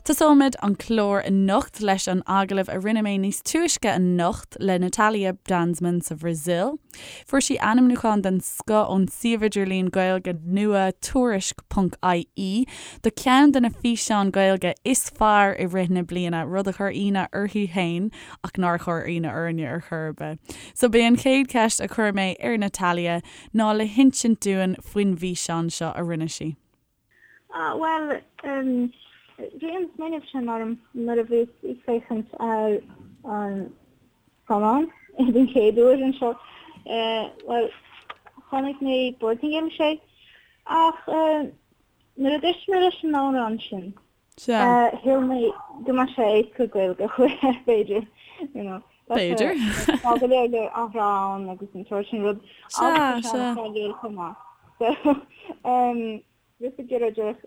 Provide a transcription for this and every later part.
Tosóimid an clár anocht leis an agallamh a rinne mé níos túisce anocht le Natalia Danzmann sa Bhrasaíl. Fuair sí ainmniúchán den scoth ón suíomh idirlín Gaeilge nua Tuairisc ponc ie do cheann de na físeáin Ghaeilge is fearr i rith na bliana, rud a chuir ionadh uirthi féin ach nár chuir ionadh orainne ar chor ar bith. So b'é an chéad cheist a chuir mé ar Natalia ná le hinsint dúinn faoin bhfíseán seo a rinne sí. Ah, bhuel, bhí an smaoineamh sin orm nuair a bhíos ag féachaint ar an scannán den chéad uair anseo. Bhuel, chonaic mé Portaingéilis é, ach nuair a d'éist mé leis an amhrán sin, shíl mé go mbeadh sé éasca Gaeilge a chur air, b'fhéidir, you know. B'fhéidir. Tá go leor leor athrá ann agus an sórt sin rud. Agus tá sé an-cháiliúil chomh maith. So, bhíos ag iarraidh díreach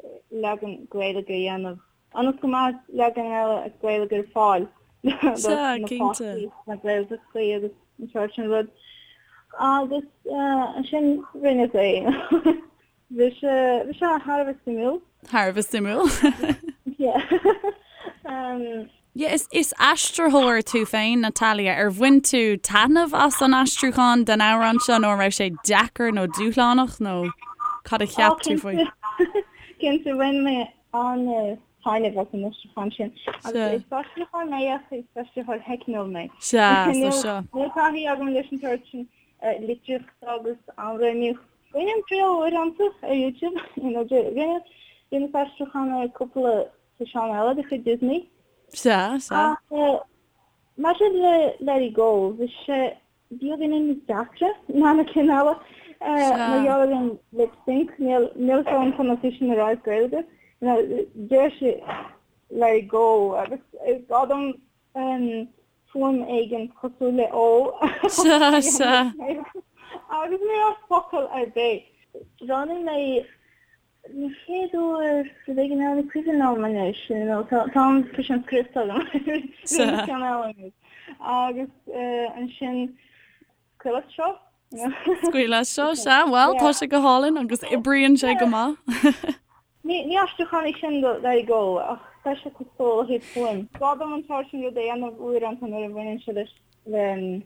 leagan Gaeilge a dhéanamh ionas go mbeadh leagan eile Gaeilge ar fáil do na páistí sna Gaeltachtaí agus an sórt sin rud. Agus ansin rinneas é. Bhí sé bhí sé thar a bheith suimiúil. Thar a bheith suimiúil. Yeah. Yeah, is, is aistritheoir tú féin, Natalia. Ar bhain tú taitneamh as an aistriúchán den amhrán seo nó an raibh sé deacair nó dúshlánach nó cad a cheap tú faoi? Cinnte, bhain mé an-taitneamh as an aistriúchán sin. Agus is aistritheoir mé ach is aistritheoir teicniúil mé. Sea, so seo. Níl taithí agam leis an tsórt sin litríochta agus amhránaíocht. Bainim triail uaireanta ar YouTube, you know, rinne, rinneas aistriúchán ar cúpla físeán eile de chuid Disney. Sea, sea. Ach maidir le Let It Go, bhí sé beagáinín níos deacra ná na cinn eile. Mar gheall ar an lip sync, níl, níl fhios agam conas é sin a rá as Gaeilge. You know, deir sé Let It Go agus is gá dom fuaim éigin cosúil le ó Sea, sea. agus ní raibh focal ar bith. Roghnaigh mé an chéad uair rud éigin eile, ní cuimhin liom anois, you know, tá tá an físeán scriosta agam Sea. ceann eile anois. Agus ansin scaoil as seo. Scaoil as seo, sea, bhuel, tá sé go hálainn agus oibríonn sé go maith. Ní aistriúchán é sin do Let It Go ach tá sé cosúil ó thaobh fuaim. Gá dom an sórt sin rud a dhéanamh uaireanta nuair a bhaineann sé leis le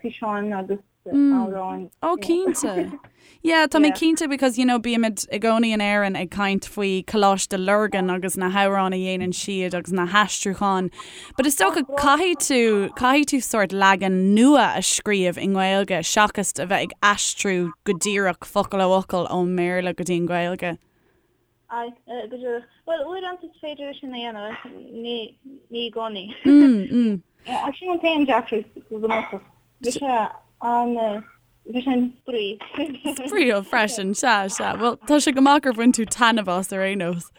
físeáin agus amhráin. Ó cinnte. Yeah, tá mé cinnte because you know bímid i gcónaí in Éirinn ag caint faoi Coláiste Lurgan agus na hamhráin a dhéanann siad agus na haistriúcháin. But is dócha caithfidh tú caithfidh tú sórt leagan nua a scríobh i nGaeilge seachas a bheith ag aistriú go díreach focal ó fhocal ón mBéarla go dtí an Ghaeilge. Aye, go díreach. Bhuel, uaireanta is féidir é sin a dhéanamh, ach ní ní i gcónaí. Ach sin an t-aon deacracht go bunúsach. Bhí sé an bhí sé an-spraoi. Spraíúil freisin, sea, sea. Bhuel, tá sé go maith gur bhain tú taitneamh as ar aon nós.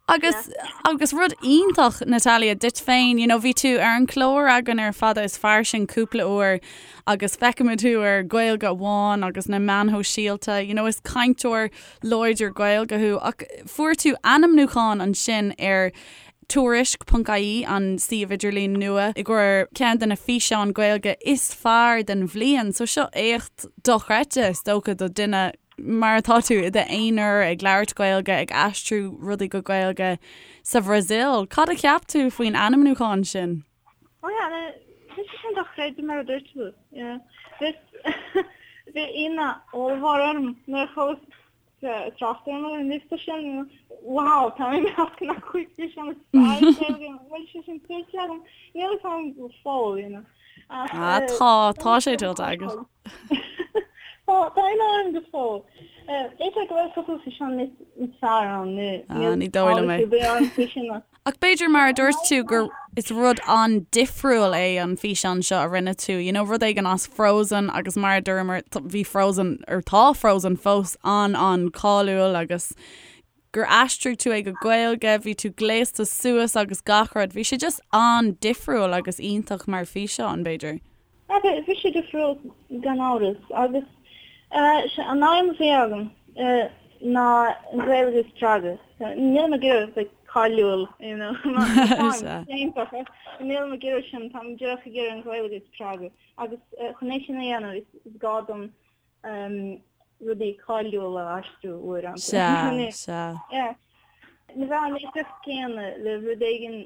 Agus agus rud iontach, Natalia, duit féin, you know, bhí tú ar an chlár againn ar Fada is Fairsing cúpla uair agus feicimid thú ar Gaeilge Amháin agus na meáin shóisialta, you know, is cainteoir láidir Gaeilge thú ach fuair tú ainmniúchán ansin ar Tuairisc ponc ie, an suíomh idirlín nua, i gcomhair ceann de na físeáin Gaeilge is fearr den bhliain. So seo éacht dochreidte, is dócha, do duine mar atá tú i d'aonar ag labhairt Gaeilge, ag aistriú rudaí go Gaeilge sa Bhrasaíl. Cad a cheap tú faoin ainmniúchán sin? Oh yeah, bhí sé sin dochreidte mar a dúirt tú. Yeah. Bhí bhí ionadh ollmhór orm nuair a chuala trácht orm ar an liosta sin. Wow, tá mé i measc na gcúig físeán is fearr i Gaeilge. Bhfuil sé sin tuillte agam? Níl a fhios agam go fóill, you know. Ach, Ah, tá, tá sé tuillte agat. Tá, tá ionadh orm go fóill. B'fhéidir go bhfuil cúpla físeán níos fearr ann, Ah, ní dóigh liom é. níl eolas ar bith orm faoi sin ach Ach b'fhéidir mar a dúirt tú gur is rud an-difriúil é an físeán seo a rinne tú, you know, rud éigin as Frozen agus mar a dúramar bhí Frozen, or tá Frozen fós an-an-cáiliúil agus gur aistrigh tú é go Gaeilge, bhí tú gléasta suas agus gach rud, bhí sé just an-difriúil agus iontach mar físeán, b'fhéidir. Bhí sé difriúil gan amhras agus an aidhm a bhí agam ná an Ghaeilge a spreagadh. Nílim ag iarraidh bheith cáiliúil, you know, nílim ag iarraidh sin, táim díreach ag iarraidh an Ghaeilge a spreagadh agus chun é sin a dhéanamh is gá dom rudaí cáiliúla a aistriú uaireanta. Sea, sea. Yeah. Ní bheadh an éifeacht céanna le rud éigin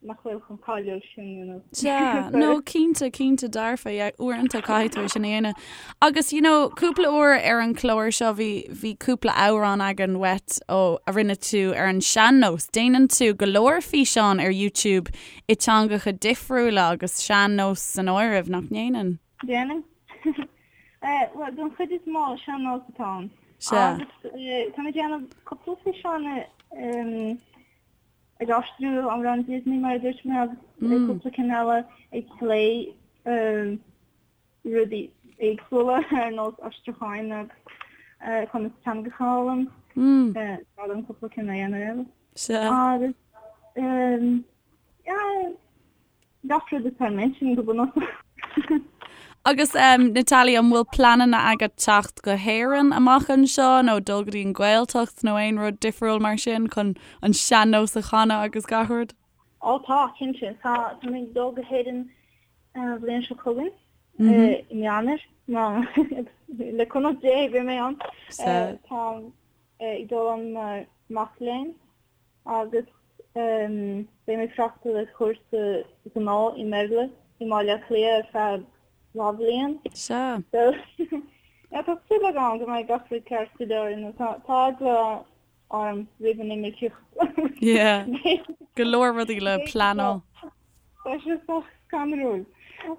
nach bhfuil chomh cáiliúil sin, you know. Sea, no, cinnte, cinnte dearfa, yeah, uaireanta caithfidh tú é sin a dhéanamh. Agus, you know, cúpla uair ar an chlár seo bhí, bhí cúpla amhrán againn uait ó, a rinne tú ar an sean-nós. Déanann tú go leor físeán ar YouTube i teangacha difriúla agus sean-nós san áireamh, nach ndéanann? Déanann. Bhuel, don chuid is mó, sean-nós atá ann. Sea. Agus tá mé ag déanamh cúpla físeán ag aistriú amhrán Disney, mar a dúirt mé, agus cúpla cinn eile ag plé rudaí éagsúla ar nós aistriúcháin agus conas teangacha a fhoghlaim. Tá liom cúpla cinn a dhéanamh eile. Sea. Agus, yeah, Gach rud atá im intinn go bunúsach. Agus Natalia, an bhfuil pleananna agat teacht go hÉirinn amach anseo nó dul go dtí an Ghaeltacht nó aon rud difriúil mar sin chun an sean-nós a chanadh agus gach rud? Ó tá, cinnte. Tá, tá mé ag dul go hÉirinn an bhliain seo chugainn, i mí Eanáir, má, le cúnamh Dé beidh mé ann. Táim ag dul ann mar mac léinn. agus beidh mé ag freastal ar chúrsa gnó i mBéarla i mBaile Átha Cliath ar feadh dhá bhliain. Sea. So, yeah, tá súil agam go mbeidh gach rud ceart go leor, you know, tá tá eagla orm roimh an imirceacht. Yeah. Go leor rudaí le pleanáil. Tá sé sách scanrúil.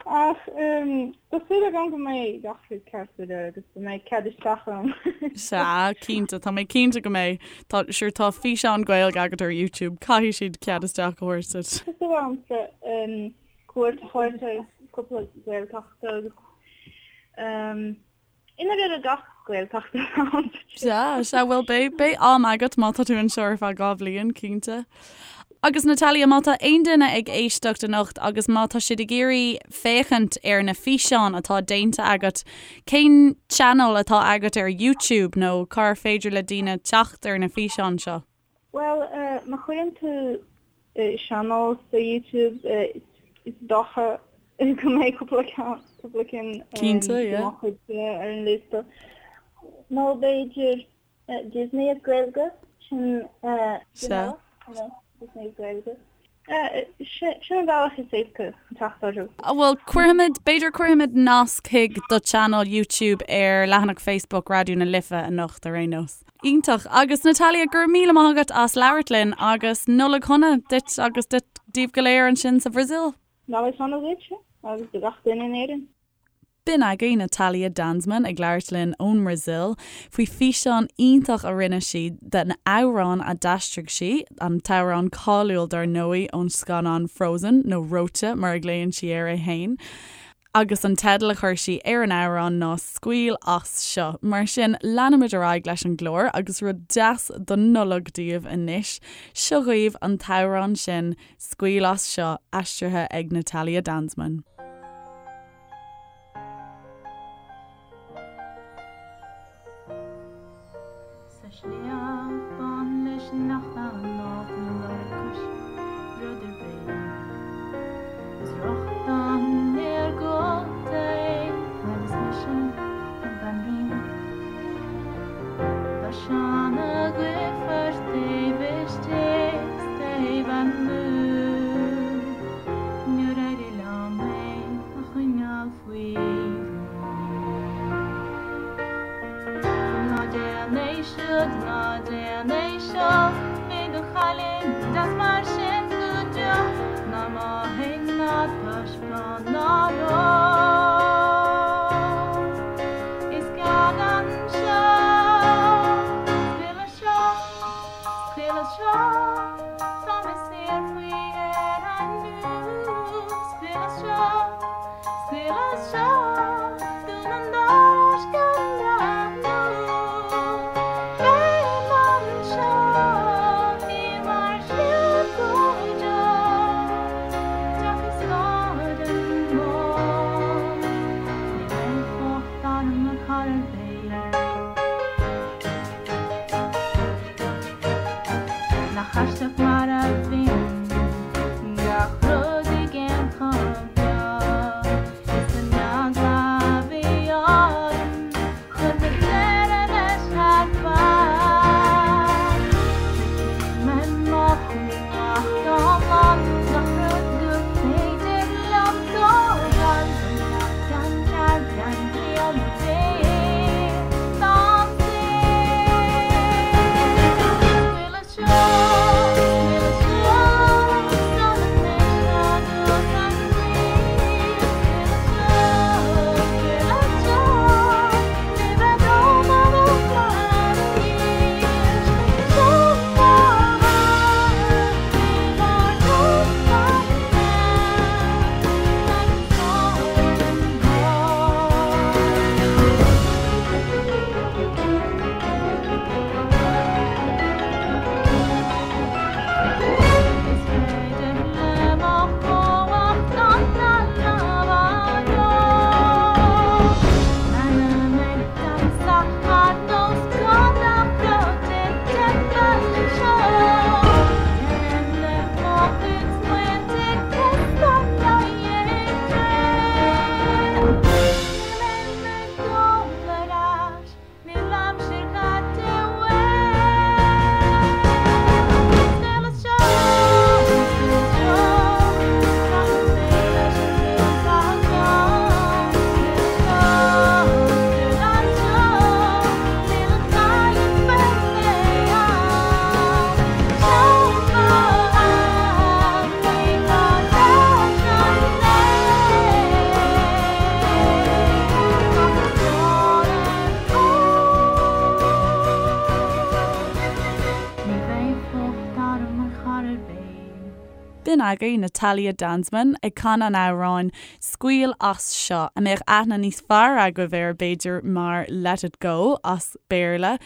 Ach tá súil agam go mbeidh gach rud ceart go leor agus go mbeidh cead isteach agam. Sea, cinnte, tá mé cinnte go mbeidh. Tá, sure, tá físeán Gaeilge agat ar YouTube, caithfidh siad cead isteach a thabhairt duit. Tá súil agamsa cuairt a thabhairt ar cúpla Gaeltacht agus I ndáiríre gach Gaeltacht ann. Sea, sea, bhuel beidh, beidh am agat má tá tú anseo ar feadh 2 bhliain, cinnte. Agus Natalia, má tá aon duine ag éisteacht anocht agus má tá siad ag iarraidh féachaint ar na físeáin atá déanta agat, cén channel atá agat ar YouTube nó cár féidir le daoine teacht ar na físeáin seo? Bhuel, má chuireann tú sean-nós ar YouTube, is dócha go mbeidh cúpla ceann, cúpla cinn Cinnte, yeah. de mo chuid ar an liosta. Nó b'fhéidir Disney as Gaeilge, sin Sea. Disney as Gaeilge. Sin an bealach is éasca chun teacht orthu. Bhuel, cuirfimid, b'fhéidir cuirfimid nasc chuig do channel YouTube ar leathanach Facebook Raidió na Life anocht ar aon nós. Iontach. Agus Natalia, go raibh míle maith agat as labhairt linn agus Nollaig shona duit agus duit, daoibh go léir ansin sa Bhrasaíl. Nollaig shona duit agus do gach duine in Éirinn. B'in againn Natalia Danzmann ag labhairt linn ón mBrasaíl faoi físeán iontach a rinne sí den amhrán a d'aistrigh sí, an t-amhrán cáiliúil dar ndóigh ón scannán Frozen, nó Reoite mar a ghlaonn sí air é fhéin, agus an teideal a chuir sí ar an amhrán ná Scaoil As Seo. Mar sin, leanfaimid ar aghaidh leis an gclár agus rud deas don Nollaig daoibh anois, seo dhaoibh an t-amhrán sin, Scaoil As Seo, aistrithe ag Natalia Danzmann. Sa sliabh bán leis nach ná tú lorg cois rud ar bith. Is rochtain ar gcóta é agus mise an bhanríon. Tá Seán agaibh taobh istigh 's taobh amuigh. Níor éirigh liom é a choinneáil faoi rún. Ná déan é siúd, ná déan é seo, mé do chailín deas mar sin go deo, ná mothaigh ná taispeáin ná ró. Is cead anseo, scaoil as seo, scaoil as seo, tá mé saor faoi dheireadh inniu, scaoil as seo. Scaoil as seo, dún an doras gan breathnú. Beim anseo i mbarr shliabh go deo. Deoch is bád an mbád. B'in agaibh Natalia Danzmann ag canadh an amhráin 'Scaoil As Seo', a mbeadh aithne níos fearr agaibh air b'fhéidir mar 'Let It Go' as Béarla,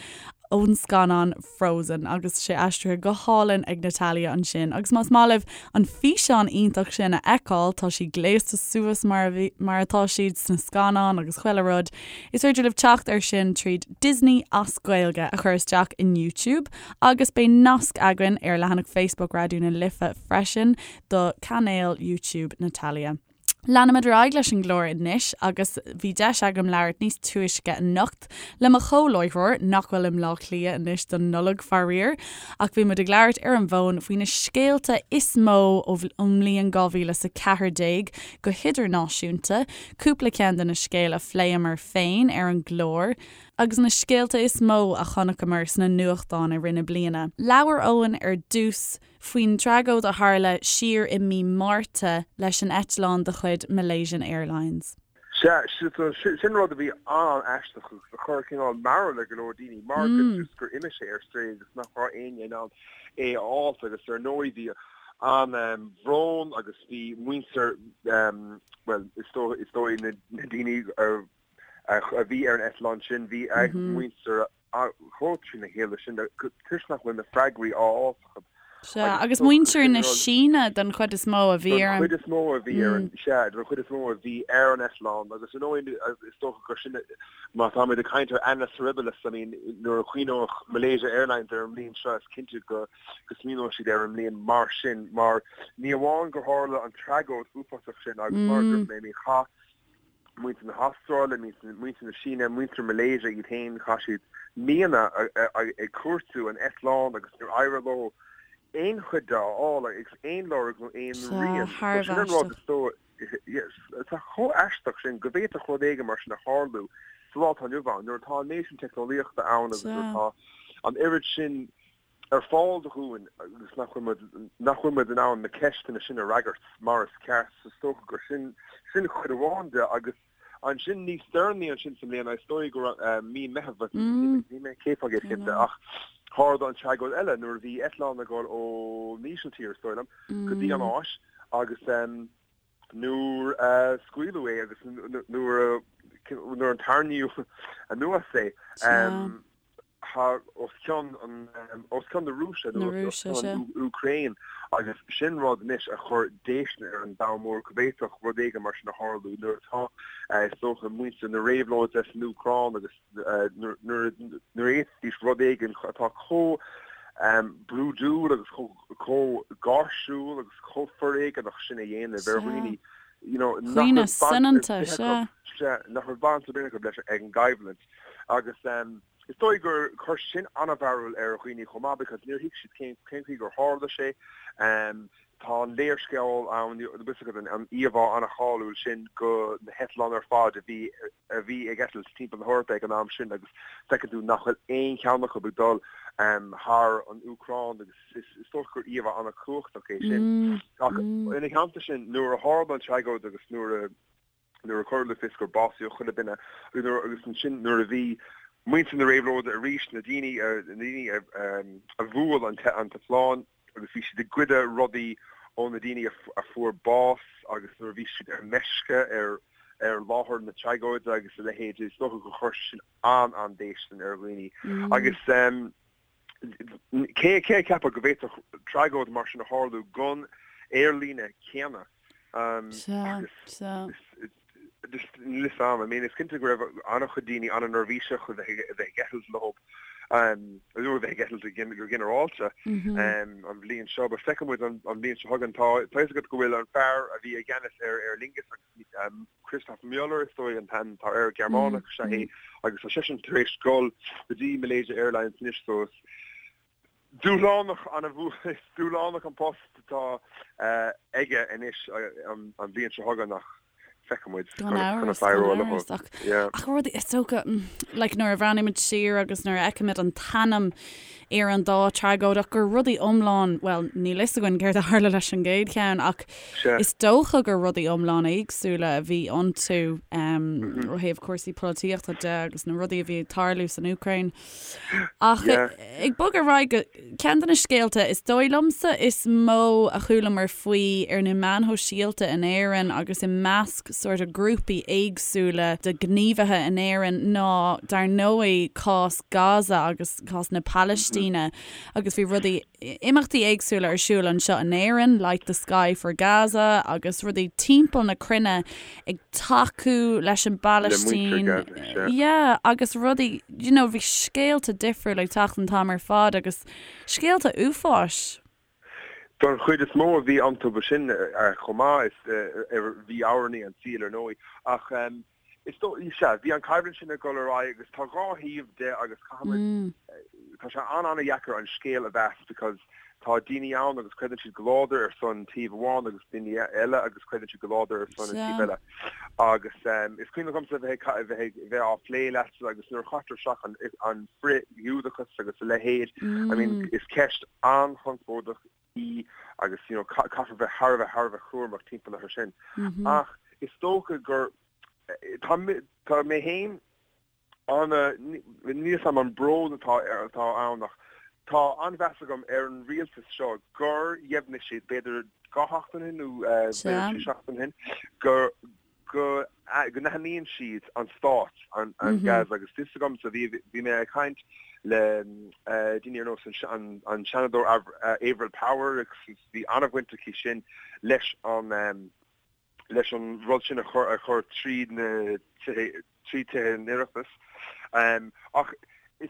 ón scannán Frozen agus sé aistrithe go hálainn ag Natalia ansin. Agus más maith libh an físeán iontach sin a fheiceáil, tá sí gléasta suas mar a bhí, mar atá siad sna scannáin agus chuile rud, is féidir libh teacht air sin tríd Disney as Gaeilge a chur isteach in YouTube agus beidh nasc againn ar leathanach Facebook Raidió na Life freisin do cainéal YouTube Natalia. Leanfaimid ar aghaidh leis an gclár anois agus bhí deis agam labhairt níos túisce anocht le mo chomhláithreoir, nach bhfuil i mBleá Cliath anois don Nollaig, faraor, ach bhí muid ag labhairt ar an bhfón faoi na scéalta is mó ón mbliain 2014 go hidirnáisiúnta, cúpla ceann de na scéil a phléamar féin ar an gclár, agus na scéalta is mó a chonaiceamar sna nuachtáin i rith na bliana. Labhair Eoin ar dtús faoin tragóid a tharla siar i mí Márta leis an eitleán de chuid Malaysian Airlines. Sea, sin rud a bhí an-aisteach agus a chuir cineál mearbhall ar go leor daoine mar go just gur imigh sé ar strae agus nach raibh éinne in ann é a fháilt agus ar ndóigh bhí an-bhrón agus bhí muintir, bhuel is dóigh na daoine a bhí ar an eitleán sin, bhí a muintir chomh trína chéile sin toisc nach bhfuil na freagraí á fháil acu. Sea, agus muintir na Síne den chuid is mó a bhí ar an. Den chuid is mó a bhí ar an, sea, den chuid is mó a bhí ar an eitleán agus ar ndóigh is dócha gur sin, má táimid ag caint ar annus horribilis, I mean nuair a chuimhneoidh Malaysia Airlines ar an mbliain seo is cinnte go go smaoineoidh siad ar an mbliain mar sin mar ní amháin gur tharla an tragóid uafásach sin agus mar a dúirt mé, I mean chaith muintir na hAstráile, muintir na Síne, muintir Malaysia iad féin, chaith siad míonna ag cuartú an eitleáin agus níor éirigh leo aon chuid de a fháil agus aon lorg nó aon rian. So sin an rud is dóigh, tá chomh aisteach sin go bhféadfadh rud éigin mar sin a tharlú sa lá atá inniu ann nuair atá an méid sin teicneolaíochta ann agus nuair atá an oiread sin ar fáil dúinn agus nach bhfuil muid, nach bhfuil muid in ann na ceisteanna sin a fhreagairt mar is ceart. So is dócha gur sin, sin chuid amháin de agus ansin níos deireanaí ansin sa mbliain, is dóigh go raibh mí Meitheamh, níl mé 100% cinnte ach tharla an tragóid eile nuair a bhí eitleán ag dul ón Ísiltír, is dóigh liom, go dtí an Áis agus nuair a scaoileadh é agus nuair a, nuair a tarraingíodh anuas é, thar os cionn an os cionn na Rúise nó os cionn an Úcráin agus sin rud anois a chuir déistin ar an domhan mór go bhféadfadh rud éigin mar sin a tharlú nuair atá is dócha muintir na réabhlóide san Úcráin agus nuair a fhéadfaidís rud éigin atá chomh brúidiúil agus chomh gáirsiúil agus chomh foréigeanach sin a dhéanamh ar dhaoine you know nach raibh baint ar bith acu nach raibh baint ar bith acu leis an gcoimhlint. Agus is dóigh gur chuir sin an-mhearbhall ar dhaoine chomh maith because níor thuig siad cén cén chaoi gur tharla sé. Tá an léarscáil ann, bhfuil fhios agat, an íomhá an-cháiliúil sin de na heitleáin ar fad a bhí a bhí ag eitilt timpeall na hEorpa ag an am sin agus feiceann tú nach bhfuil aon cheann acu ag dul thar an Úcráin agus is dócha gur íomhá an-chumhachtach é sin. Ach ina theannta sin, nuair a tharla an tragóid agus nuair a nuair a cuireadh le fios gur básaíodh chuile duine agus ansin nuair a bhí muintir na réabhlóide arís, na daoine na daoine a bhuail an t-eitleán agus bhí siad ag goideadh rudaí ó na daoine a fuair bás agus nuair a bhí siad ar meisce ar ar láthair na tragóide agus a leithéid, is dócha gur chuir sin an-an-déistin ar dhaoine agus cé cé a cheapfadh go bhféadfadh tragóid mar sin a tharlú don aerlíne céanna? Agus just níl fhios a'm. I mean is cinnte go raibh an-chuid daoine an-neirbhíseach a bheith a bheith ag eitilt leo nó a bheith ag eitilt go ginearálta an bhliain seo. But feicfidh muid an bhliain seo chugainn. Tá tá fhios agat go bhfuil an fear a bhí i gceannas ar Aer Lingus agus Christoph Müller is dóigh an t-ainm atá air, Gearmánach is ea é agus tá seisean tar éis dul go dtí Malaysia Airlines anois so is dúshlánach an-, is dúshlánach an post atá aige anois an bhliain seo chugainn ach. Feicfidh muid Gan amhras, gan amhras, ach ach rudaí, is dócha, like nuair a bhreathnaímid siar agus nuair a fheicimid an t-ainm ar an dá tragóid ach gur rudaí iomlán, bhuel, níl fhios againn céard a tharla leis an gcéad cheann ach is dócha gur rudaí iomlán éagsúla a bhí iontu ó thaobh cúrsaí polaitíochta de agus na rudaí a bhí ag tarlú san Úcráin. Ach ag bogadh ar aghaidh go ceann de na scéalta is dóigh liomsa is mó a chualamar faoi ar na meáin shóisialta in Éirinn agus i measc sort of grúpaí éagsúla de ghníomhaithe in Éirinn ná dar ndóigh cás Gaza agus cás na Palaistíne agus bhí rudaí imeachtaí éagsúla ar siúl anseo in Éirinn, Light the Sky for Gaza agus rudaí timpeall na cruinne ag tacú leis an bPalaistín. Yeah, agus rudaí, you know, bhí scéalta difriúla ag teacht an t-am ar fad agus scéalta uafáis. Don chuid is mó a bhí iontu ba sin chomh maith, is bhí amhránaí an tsaoil ar ndóigh ach Is dóigh, sea, bhí an choimhlint sin ag dul ar aghaidh agus tá dhá thaobh de agus caithfimid, tá sé an-an-dheacair an scéal a mheas because tá daoine ann agus creideann siad go láidir ar son taobh amháin agus daoine eile agus creideann siad go láidir ar son an taobh eile. Agus is cuimhin liomsa bheith ag, bheith ag, bheith á phlé leatsa agus nuair a chaitear isteach an, an frith-Ghiúdachas agus a leithéid, I mean, is ceist an-chonspóideach í agus you know caithfear bheith thar a bheith thar a bheith cúramach timpeall air sin. Ach is dócha gur tá tá mé féin ana níl fhios a'm an brón atá atá ann ach tá an-mheas agam ar an rialtas seo gur dheimhnigh siad b'fhéidir dhá sheachtain ó shin nó b'fhéidir trí seachtain ó shin gur go n-aithníonn siad an stát, an Gaza agus fios agamsa, bhí bhí mé ag caint le daoine ar nós an an Seanadóir Avril Power agus bhí an-bhaint aici sin leis an leis an rud sin a chur a chur tríd na tithe trí tithe an Oireachtais. Ach is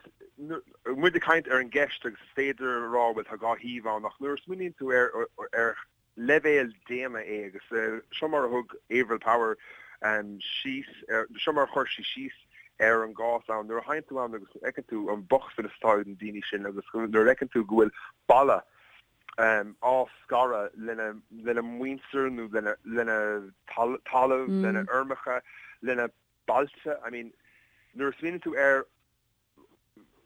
muid ag caint ar an gceist agus is féidir a rá bhuel tá dhá thaobh ann ach nuair a smaoiníonn tú ar ar leibhéal daonna é agus seo mar a thug Avril Power síos ar, seo mar a chuir sí síos ar an gcás ann, nuair a théann tú ann agus fheiceann tú an bochtanas atá ag na daoine sin agus nuair a fheiceann tú go bhfuil balla á scaradh lena lena muintir nó lena lena talamh, lena fheirmeacha, lena bailte, I mean nuair a smaoiníonn tú ar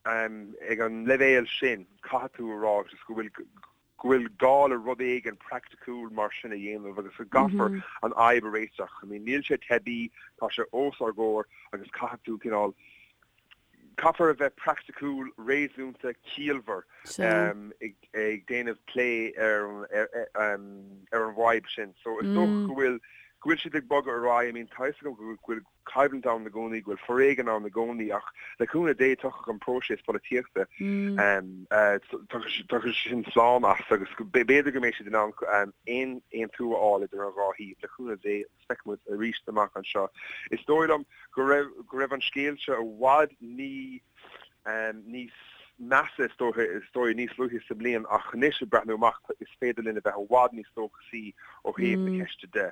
Ag an leibhéal sin, caithfidh tú a rá just go bhfuil go bhfuil gá le rud éigin praiticiúil mar sin a dhéanamh agus go gcaithfear an fhadhb a réiteach. I mean, níl sé teibí, tá sé os ár gcomhair agus caithfidh tú cineál, caithfear a bheith praiticiúil, réasúnta, ciallmhar ag déanamh plé ar ar an bhfadhb sin. So is dócha go bhfuil go bhfuil siad ag bogadh ar aghaidh. I mean, tá a fhios agam go bhfuil coimhlint ann i gcónaí, go bhfuil foréigean ann i gcónaí ach le cúnamh Dé tiocfaidh an próiseas polaitíochta, tiocfaidh sin slán as agus b'fhéidir go mbeidh siad in ann aon aontú a fháil idir an dhá thaobh, le cúnamh Dé agus feicfidh muid arís amach anseo. Is dóigh liom go raibh go raibh an scéal seo i bhfad ní níos measa is dóiche is dóigh níos luaithe sa mbliain ach anois ag breathnú amach is féidir linn a bheith i bhfad níos dóchasaí ó thaobh na ceiste de.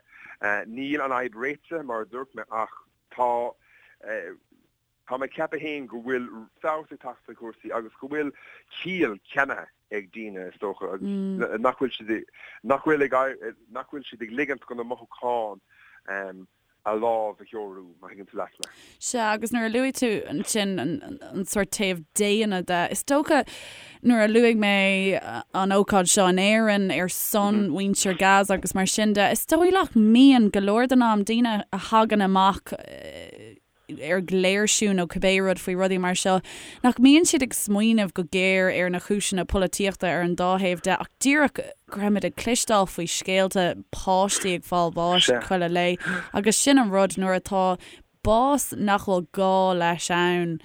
Níl an fhadhb réitithe mar a dúirt mé ach tá tá mé ag ceapadh féin go bhfuil feabhas ag teacht ar chúrsaí agus go bhfuil ciall ceannaithe ag daoine is dócha agus nach bhfuil siad nach bhfuil ag nach bhfuil siad ag ligint do na mothúcháin a lámh a threorú, má thuigeann tú leat mé. Sea, agus nuair a luaigh tú ansin an sórt taobh daonna de, is dócha nuair a luaigh mé an ócáid seo in Éirinn ar son mhuintir Gaza agus mar sin de, is dóigh nach mbíonn go leor den am daoine a thagann amach ar léirsiú nó cibé rud faoi rudaí mar seo, nach mbíonn siad ag smaoineamh go géar ar na cúiseanna polaitíochta ar an dá thaobh de ach díreach go raibh muid ag cloisteáil faoi scéalta páistí ag fáil bháis chuile lae agus sin an rud nuair atá bás nach bhfuil gá leis ann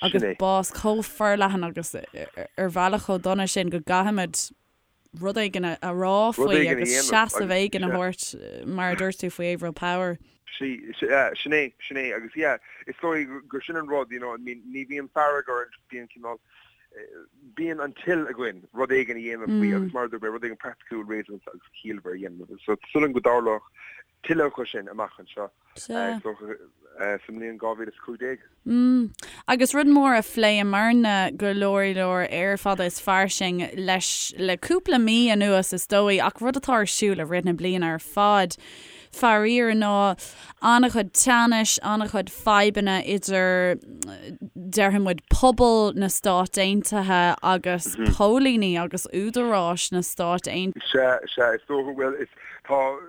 agus bás chomh forleathan agus ar bhealach chomh dona sin go gcaithfimid rud éigin a rá faoi agus seasamh éigin a thabhairt mar a dúirt tú faoi Avril Power. Sin é, sin é agus yeah, is dóigh gur sin an rud, you know, I mean, ní bhíonn fearg orainn, bíonn cineál, bíonn an toil againn rud éigin a dhéanamh faoi agus mar a dúirt mé, rud éigin praiticiúil, réasúnta agus ciallmhar a dhéanamh. So súil agam go dtarlódh tuilleadh acu sin amach anseo is dócha sa mbliain 2015. Mm. Agus rud mór a phléamarna go leor leor ar Fada is Fairsing leis le cúpla mí anuas is dóigh, ach rud atá ar siúl i rith na bliana ar fad. Faraor ná an-chuid teannais, an-chuid fadhbanna idir, déarfaidh muid, pobal na Stát Aontaithe agus póilíní agus údaráis na Stát Aontaithe. Sea, sea, is dócha, bhuel, is, tá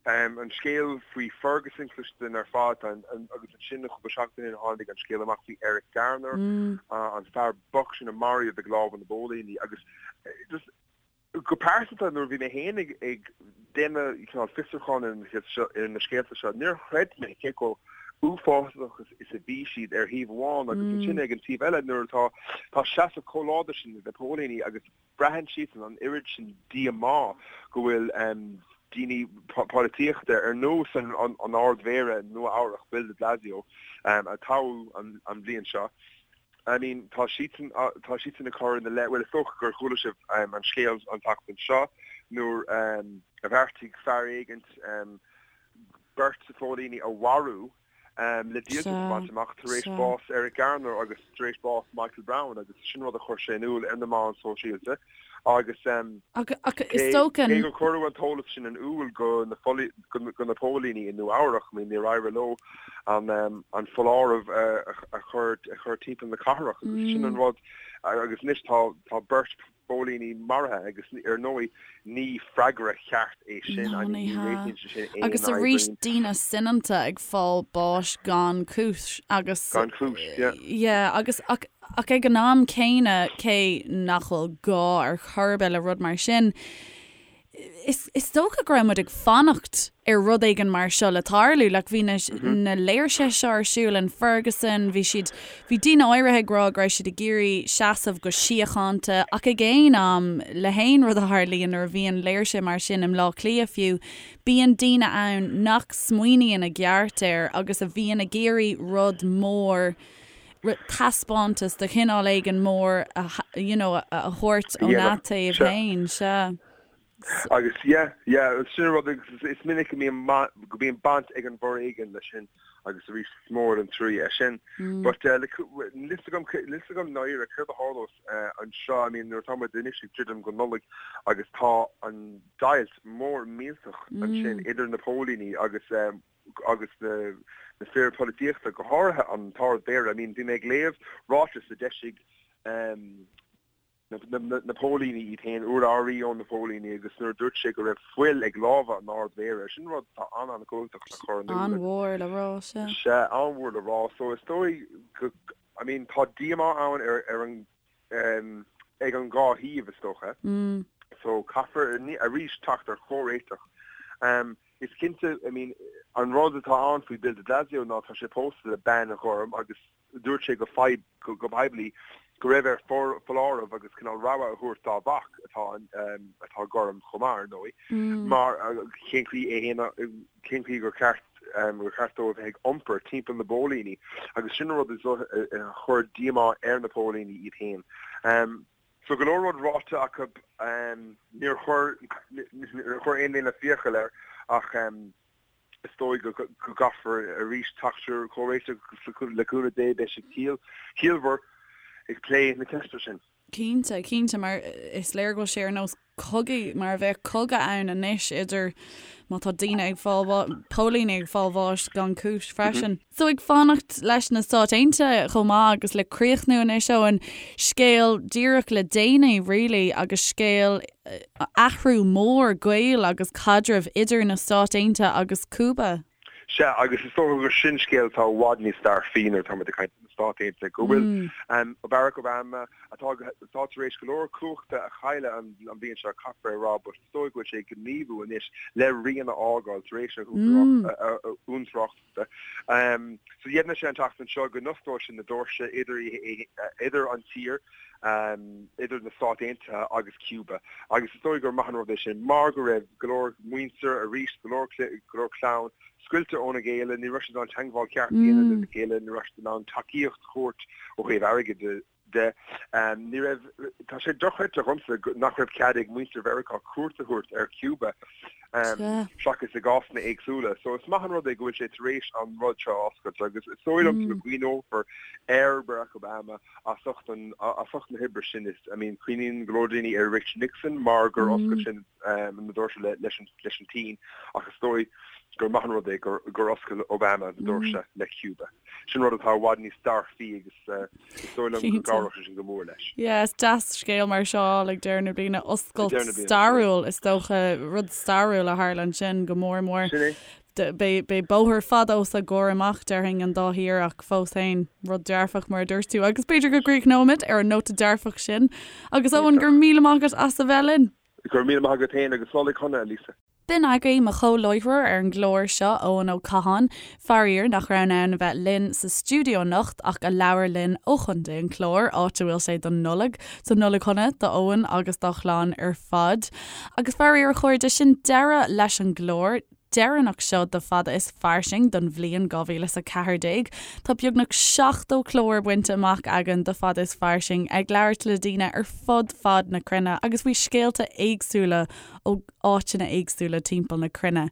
an scéal faoi Ferguson cloiste againn ar fad, agus ansin cúpla seachtain ó shin tháinig an scéal amach faoi Eric Garner, an fear bocht sin a maraíodh ag lámha na bpóilíní agus just, Go pearsanta, nuair a bhí mé féin ag déanamh cineál fiosrúcháin ar na scéalta seo, níor chreid mé cé chomh uafásach is a bhí siad ar thaobh amháin agus ansin ag an taobh eile nuair atá tá seasamh chomh láidir sin ag na póilíní agus braitheann siadsan an oiread sin díomá go bhfuil daoine polaitíochta ar nós an Ard-Mhéara Nua-Eabhrac, Bill de Blasio, a toghadh an bhliain seo. I mean, tá siadsan, tá siadsan ag cur ina leith, bhuel is dócha gur chuala sibh an scéal an tseachtain seo nuair a bheartaigh fear éigint beirt phóilíní a mharú le díoltas a bhaint amach tar éis bás Eric Garner agus tar éis bás Michael Brown agus sin rud a chuir sé in iúl ar na meáin sóisialta agus is dócha cé gur cuireadh an t-eolas sin in iúl go na go na póilíní i Nua Eabhrach, I mean níor éirigh leo an an foláireamh a chur a chur timpeall na cathrach agus sin an rud agus anois tá tá beirt phóilíní maraithe agus ar ndóigh ní freagra ceart é sin, I mean ní réitíonn sé sin aon Agus arís daoine soineanta ag fáil báis gan cúis agus Gan cúis, yeah. Yeah, agus ach ach ag an am céanna cé nach bhfuil gá ar chor ar bith le rud mar sin, Is is dócha go raibh muid ag fanacht ar rud éigin mar seo le tarlú. Like bhí na na léirsithe seo ar siúl in Ferguson, bhí siad, bhí daoine áirithe ag rá go raibh siad ag iarraidh seasamh go síochánta ach ag aon am, le haon rud a tharlaíonn nuair a bhíonn léirsithe mar sin i mBleá Cliath fiú, bíonn daoine ann nach smaoiníonn i gceart air agus a bhíonn ag iarraidh rud mór, taispeántas de chineál éigin mór a you know a thabhairt óna dtaobh féin, sea. Agus yeah, yeah, sin an rud agus is minic go mbíonn go mbíonn baint ag an bhforéigean leis sin agus arís is mór an trua é sin. But níl fhios agam níl fhios agam dáiríre céard a tharlós anseo, I mean nuair atá muid anois ag druidim go Nollaig agus tá an deighilt mór millteach ansin idir na póilíní agus agus na fir polaitíochta, go háirithe an tArd-Mhéara. I mean, bhí mé ag léamh ráiteas a d'eisigh na póilíní iad féin, urlabhraí ó na póilíní, agus nuair a dúirt sé go raibh fuil ag lámha an Ard-Mhéara, sin rud atá an-an-chumhachtach le cur in iúl. An-mhór le rá, sea. Sea, an-mhór le rá. So is dóigh go, I mean, tá díomá ann ar an ag an dhá thaobh, is dócha. So caithfear arís teacht ar chomhréiteach. Is cinnte, I mean, an rud atá ann faoi Bill de Blasio ná tá sé pósta le bean ghorm agus dúirt sé go go poiblí go raibh air foláireamh agus cineál rabhadh a thabhairt dá mhac atá atá gorm chomh maith, ar ndóigh, mar cén chaoi é fhéin cén chaoi gur cheart gur cheart dó a bheith ag iompar timpeall na bpóilíní agus sin an rud a chuir díomá ar na póilíní iad féin. So go leor rud ráite acu, níor chuir níor chuir aon duine fiacail air ach is dóigh go gcaithfear arís teacht ar chomhréiteach agus le cúnamh Dé beidh siad ciallmhar ag plé na ceiste sin. Cinnte, cinnte, mar is léir go bhfuil sé ar nós cogaidh, mar a bheadh cogadh ann anois idir, má tá daoine ag fáil, póilíní ag fáil bháis gan cúis freisin. So ag fanacht leis na Stáit Aontaithe chomh maith agus le críochnú anois Eoin, scéal díreach le déanaí really agus scéal athrú mór gaoil agus caidrimh idir na Stáit Aontaithe agus Cúba. Sea, agus is dócha gur sin scéal atá i bhfad níos dearfaí nuair atá muid ag caint ar na Stáit Aontaithe, go bhfuil Barack Obama, atá atá tar éis go leor cumhachta a chailleadh an bhliain seo, caithfear a rá, but is dóigh go bhfuil sé ag gníomhú anois le rian a fhágáil tar éis a uachtaránachta. So dheimhnigh sé an tseachtain seo go n-osclóidh sé na doirse idir idir an tír, idir na Stáit Aontaithe agus Cuba agus is dóigh gur maith an rud é sin mar go raibh go leor muintir arís, go leor go leor clann scoilte óna gcéile, ní raibh siad in ann teagmháil cheart a dhéanamh lena chéile, ní raibh siad in ann tacaíocht a thabhairt ó thaobh airgid de. Ní raibh, tá sé dochreidte dhomsa nach raibh cead ag muintir Mheiriceá cuairt a thabhairt ar Cuba seachas i gcásanna éagsúla. So is maith an rud é go bhfuil sé tar éis an rud seo a oscailt agus is dóigh liom go gcuimhneofar ar Barack Obama as ucht an, as ucht na hoibre sin. Is, I mean, cuimhníonn go leor daoine ar Richard Nixon mar gur oscail sé na doirse leis an tSín ach is dóigh gur maith an rud é gur oscail Obama na doirse le Cuba. Sin rud atá i bhfad níos dearfaí agus is dóigh liom go gcabhróidh sé sin go mór leis. Yeah, is deas scéal mar seo a fháil ag deireadh na bliana, oscailt stairiúil is dócha, rud stairiúil a tharla ansin go mór mór. Sin é. Beidh bóthar fada os a gcomhair amach, déarfainn, an dá thír ach fós féin, rud dearfach mar a dúirt tú. Agus b'fhéidir go gcríochnóimid ar an nóta dearfach sin. Agus Eoin, go raibh míle maith agat as a bheith linn. Go raibh míle maith agat féin agus Nollaig shona, a Lisa. B'in agaibh mo chomhláithreoir ar an gclár seo, Eoin Ó Catháin, faraor nach raibh in ann a bheith linn sa stiúideo anocht ach a labhair linn ó Chontae an Chláir, áit a bhfuil sé don Nollaig. So Nollaig shona do Eoin agus dá chlann ar fad. Agus faraor a chairde, sin deireadh leis an gclár deireanach seo de Fada is Fairsing don bhliain 2014. Tá beagnach 70 clár bainte amach againn de Fada is Fairsing ag labhairt le daoine ar fud fad na cruinne agus faoi scéalta éagsúla ó áiteanna éagsúla timpeall na cruinne.